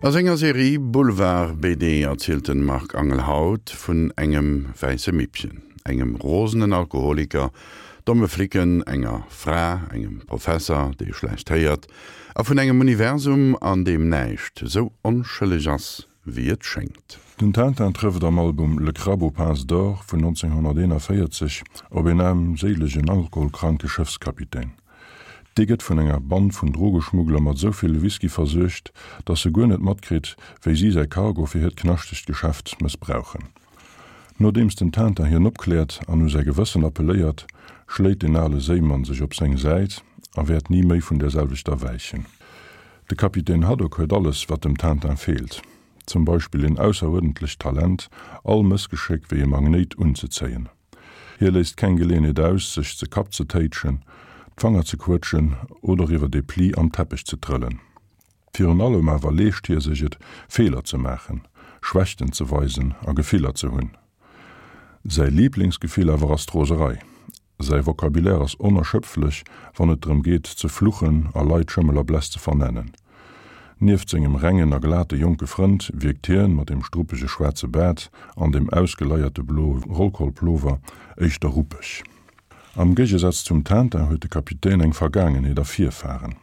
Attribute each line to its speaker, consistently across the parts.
Speaker 1: A senger Serie Boulevard BD erzielt den Marc Angel haut vun engem wäisse Mippchen, engem rosenen Alkoholiker, domme Flicken, enger Fra, engem Professer, dee schlecht héiert, a vun engem Universum, an deem näischt sou onschëlleg ass, wéi et schéngt.
Speaker 2: Den Tintin trëfft am Album Le Crabe aux pinces d'or vun 1941 op een aarmséilegen alkoholkranke Schëffskapitän. Dee gëtt vun enger Band vun Drogeschmuggler mat esou vill Whisky versuergt, datt e guer net matkritt, wéi si säi Cargo fir hiert knaschtegt Geschäft mëssbrauchen. Nodeems den Tintin hien opkläert an u säi Gewëssen appelléiert, schléit den ale Séimann sech op seng Säit a wäert ni méi vun där selwechter wäichen. De Kapitän Haddock huet alles, wat dem Tintin feelt, zum Beispill een ausseruerdentlecht Talent, all Mëssgeschéck wéi e Magnéit unzezéien. Hie léisst keng Geleeënheet aus, sech ze Kapp ze téitschen, d'Fanger ze quëtschen oder iwwer ee Pli am Teppech ze trëllen. Virun allem awer leescht hie sech et, Feeler ze maachen, Schwächten ze weisen a Gefiller ze hunn. Säi Liiblingsgefill awer ass d'Roserei. Säi Vocabulaire ass onerschöpflech, wann et drëm geet, ze fluchen a Leit Schëmmel a Bless ze vernennen. Nieft sengem rengen a glate jonke Frënd wierkt hien, mat dem struppege schwaarze Baart an dem ausgeleierte bloe Rollkollplover, éischter ruppeg. Am Géigesaz zum Tintin huet de Kapitän eng Vergaangenheet a Virfaren.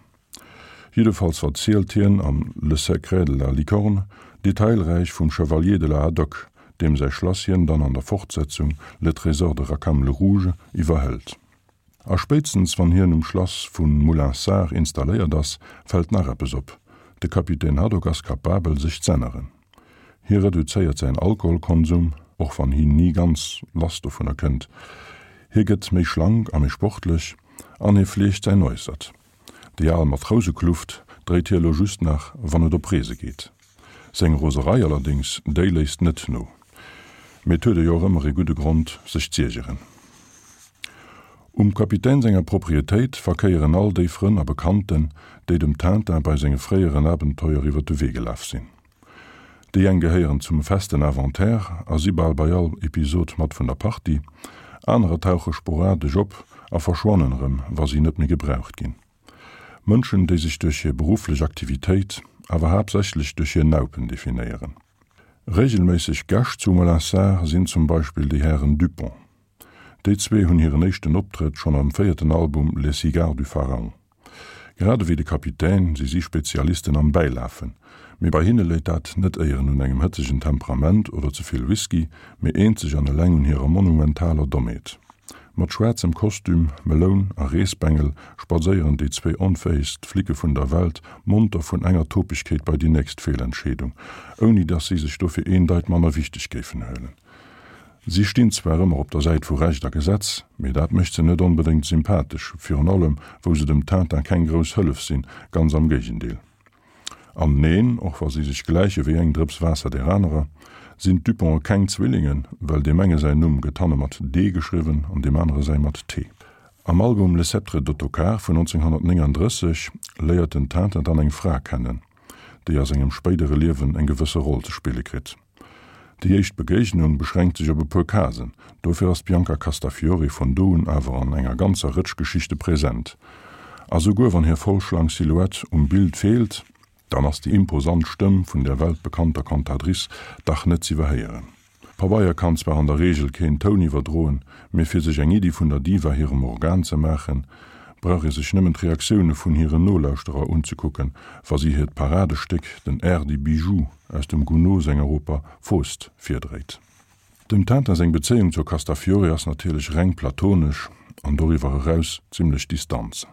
Speaker 2: Jiddefalls verzielt hien am Le secret de la licorne detailräich vum Chevalier de la Haddock, deem säi Schlass hien dann an der Fortsetzung Le trésor de Rackham le Rouge iwwerhëlt. A spéitstens wann hien um Schlass vu Moulinsart installéiert ass, fält nach eppes op, De Kapitän Haddock ass kapabel, sech z'änneren. Hie reduzéiert säin Alkoholkonsum, och wann hien ni ganz lass dovunner kënnt. Hie gëtt méi schlank a méi sportlech an hie fleegt säin Äussert. Déi al Matrousekluft dréit hie lo just nach, wann et op Reese geet. Seng Roserei allerdéngs, déi léisst net no. Mee et huet e jo och ëmmer ee gudde Grond, sech z'iergeren. Um Kapitän senger Proprietéit verkéieren all déi Frënn a Bekannten, déi dem Tintin bei senge fréieren Abenteuer iwwer de Wee gelaf sinn. Déi eng gehéieren zum festen Inventaire a si bal bei all Episod mat vun der Partie, anerer tauche sporadesch op a verschwannen erëm, wa si net méi gebraucht ginn. Mënschen, déi sech duerch hir berufflech Aktivitéit, awer haaptsächlech duerch hir Naupen definéieren. Reegelméisseg Gäscht zu Molinsart sinn zum Beispill déi Hären Dupont. Déi zwee hunn hiren éischten Optrëtt schonn am véierten Album Les Cigares du Pharaon. Grad ewéi de Kapitän si si Spezialisten am Bäilafen, mee bei hinne léit dat net éieren un engem hëtzegen Temperament oder ze vill Whisky, mee eenzeg an eleng un hirer monumentaler Dommheet. Mat schwaarzem Kostüm, Meloun a Reesbengel spadséieren déi zwee onfäegst Flicke vun der Welt monter vun enger Topegkeet bei déi nächst Feelentscheedung, ouni dass si sech dofir een Deit manner wichteg géifen huelen. Si stinn zwar ëmmer op der Säit vu Recht a Gesetz, mee dat mécht se net onbedéngt sympathesch, virun allem wou se dem Tintin keng grouss Hëllef sinn, ganz am Géigendeel. An neen, och wa si sech gläiche wéi eng Drëps Waasser där anerer, sinn d'Duponte keng Zwillingen, well deem enge säin Numm gëtt hanne mat D geschriwwen an deem anere säi mat T. Am Album Le Sceptre d'Ottokar vun 1939 léiert den Tintin dann eng Fra kennen, déi a sengem spéidere Liewen eng gewësse Roll ze spille kritt. Déi éischt Begéignung beschränkt sech op e puer Casen, dofir ass d'Bianca Castafiore vun do un awer an enger ganzer Rëtsch Geschichte present. A souguer wann hir voll schlank Silhouette um Bild feelt, dann ass déi imposant Stëmm vun der weltbekannter Cantatrice dach net z'iwwerhéieren. Pabeier kann zwar an der Reegel keen Toun iwwerdroen, mee fir sech eng Iddi vun der Diva hirem Organ ze maachen, brauch ee sech nëmmen d'Reaktioune vun hiren Nolauschterer unzekucken, wa si hiert Paradestéck, den Air des bijoux aus dem Gounod senger Oper Faust, virdréit. Dem Tintin seng Bezéiung zur Castafiore ass natierlech reng platonesch an doriwwer eraus zimmlech distanz.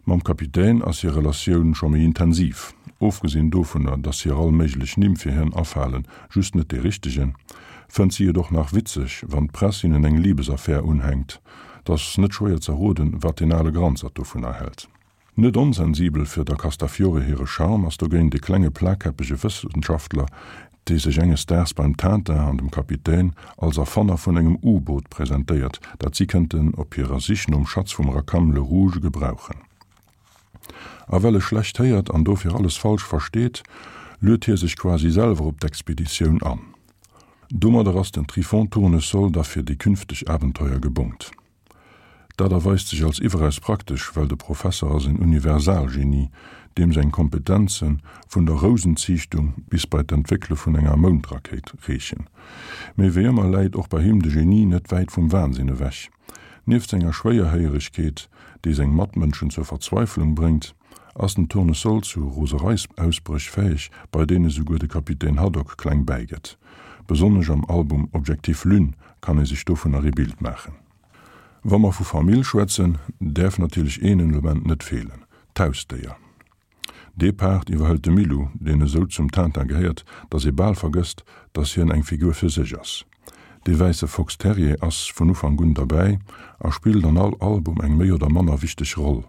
Speaker 2: Mam Kapitän ass hir Relatioun scho méi intensiv, ofgesinn dovunner, dass hir all méiglech Nimm fir hien afalen, just net dee richtegen, fënnt si et och nach witzeg, wann d'Press hinnen eng Libesaffär unhänkt. 't ass net schwéier z'erroden, wat deen ale Granzert dovunner hält. Net onsensibel fir der Castafiore hire Charme ass dogéint e klenge plakkäppege Wëssenschaftler, dee sech enges Daags beim Tintin an dem Kapitän als Erfanner vun engem U-Boot presentéiert, dat si kënnten op hirer Sich nom Schatz vum Rackham le Rouge gebrauchen. A well e schlecht héiert an dofir alles falsch versteet, luet hie sech quasi selwer op d'Expeditioun an. Domadder ass den Tryphon Tournesol da fir déi künfteg Abenteuer gebongt. Dat erweist sech als iwweraus praktesch, well de Professer ass en Universalgenie, deem seng Kompetenze vun der Rousenziichtung bis bei d'Entwéckele vun enger Moundrakéit reechen. Mee wéi ëmmer läit och bei him de Genie net wäit vum Wahnsinn ewech. Nieft senger Schwéierhéieregkeet, déi seng Matmënschen zur Verzweiflung bréngt, ass den Tournesol zu Rosereisausbréch fäeg, bei deene souguer de Kapitän Haddock kleng bäigëtt. Besonnesch am Album Objectif Lune kann ee sech dovunner ee Bild maachen. Wa mer vu Famill schwätzen, däerf natierlech een Element net feelen, d'Hausdéier. Dee Part iwwerhëlt de Milou, deen esou zum Tintin gehéiert, datt ee bal vergësst, datt hien eng Figur fir sech ass. Dee wäisse Fox Terrier ass vun Ufank un derbäi a spillt an all Album eng méi oder manner wichteg Roll.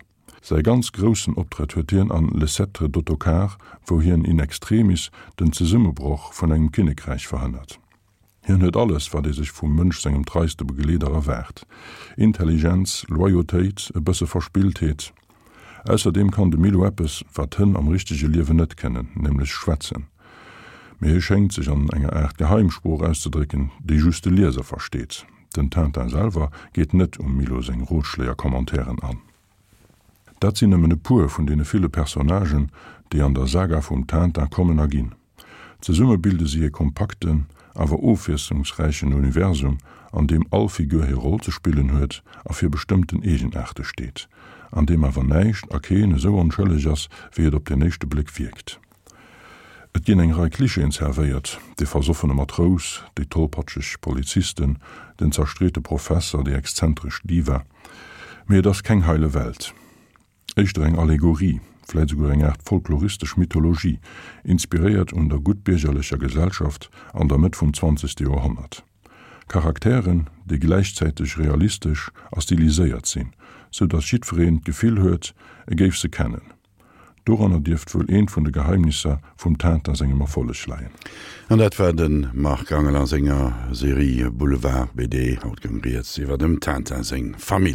Speaker 2: Säi ganz groussen Optrëtt huet hien an Le Sceptre d'Ottokar, wou hien in extremis den Zesummebroch vun engem Kinnekräich verhënnert. Hien huet alles, wat ee sech vum Mënsch sengem treiste Begleeder erwaart, Intelligenz, Loyautéit, e bësse Verspilltheet. Ausserdeem kann de Milo eppes, wat Hënn am richtege Liewen net kënnen, nämlech schwätzen. Mee hie schéngt sech an enger Aart Geheimsprooch auszedrécken, déi just de Lieser versteet. Den Tintin selwer geet net um Milo seng Rotschléi a Commentairen an. Dat sinn nëmmen e puer vun deene ville Personnagen, déi an der Saga vum Tintin kommen a ginn. Zesumme bilde si e kompakten, awer ofwiesslungsräichen Universum, an deem all Figur hir Roll ze spillen huet a fir bestëmmten Eegenaarte steet, an deem awer näischt a keen esou onschëlleg ass, wéi et op den éischte Bléck wierkt. Et ginn eng Rei Klischeeën zerwéiert, de versoffene Matrous, déi tollpatscheg Polizisten, den zerstreete Professer, déi exzentresch Diva, mee et ass keng heile Welt. Éischter eng Allegorie, vläit esouguer eng Aart folkloristesch Mythologie, inspiréiert un der guttbiergerlecher Gesellschaft an der Mëtt vum zwanzegste Joerhonnert. Charakteren, déi gläichzäiteg realistesch a stiliséiert sinn, sou datt jiddwereen d'Gefill huet, e géif se kennen. Doranner dierft wuel eent vun de Geheimnisser vum Tintin sengem Erfolleg leien.
Speaker 1: An dat war de Marc Angel a senger Serie Boulevard BD. Haut goung rieds iwwer dem Tintin seng Famill.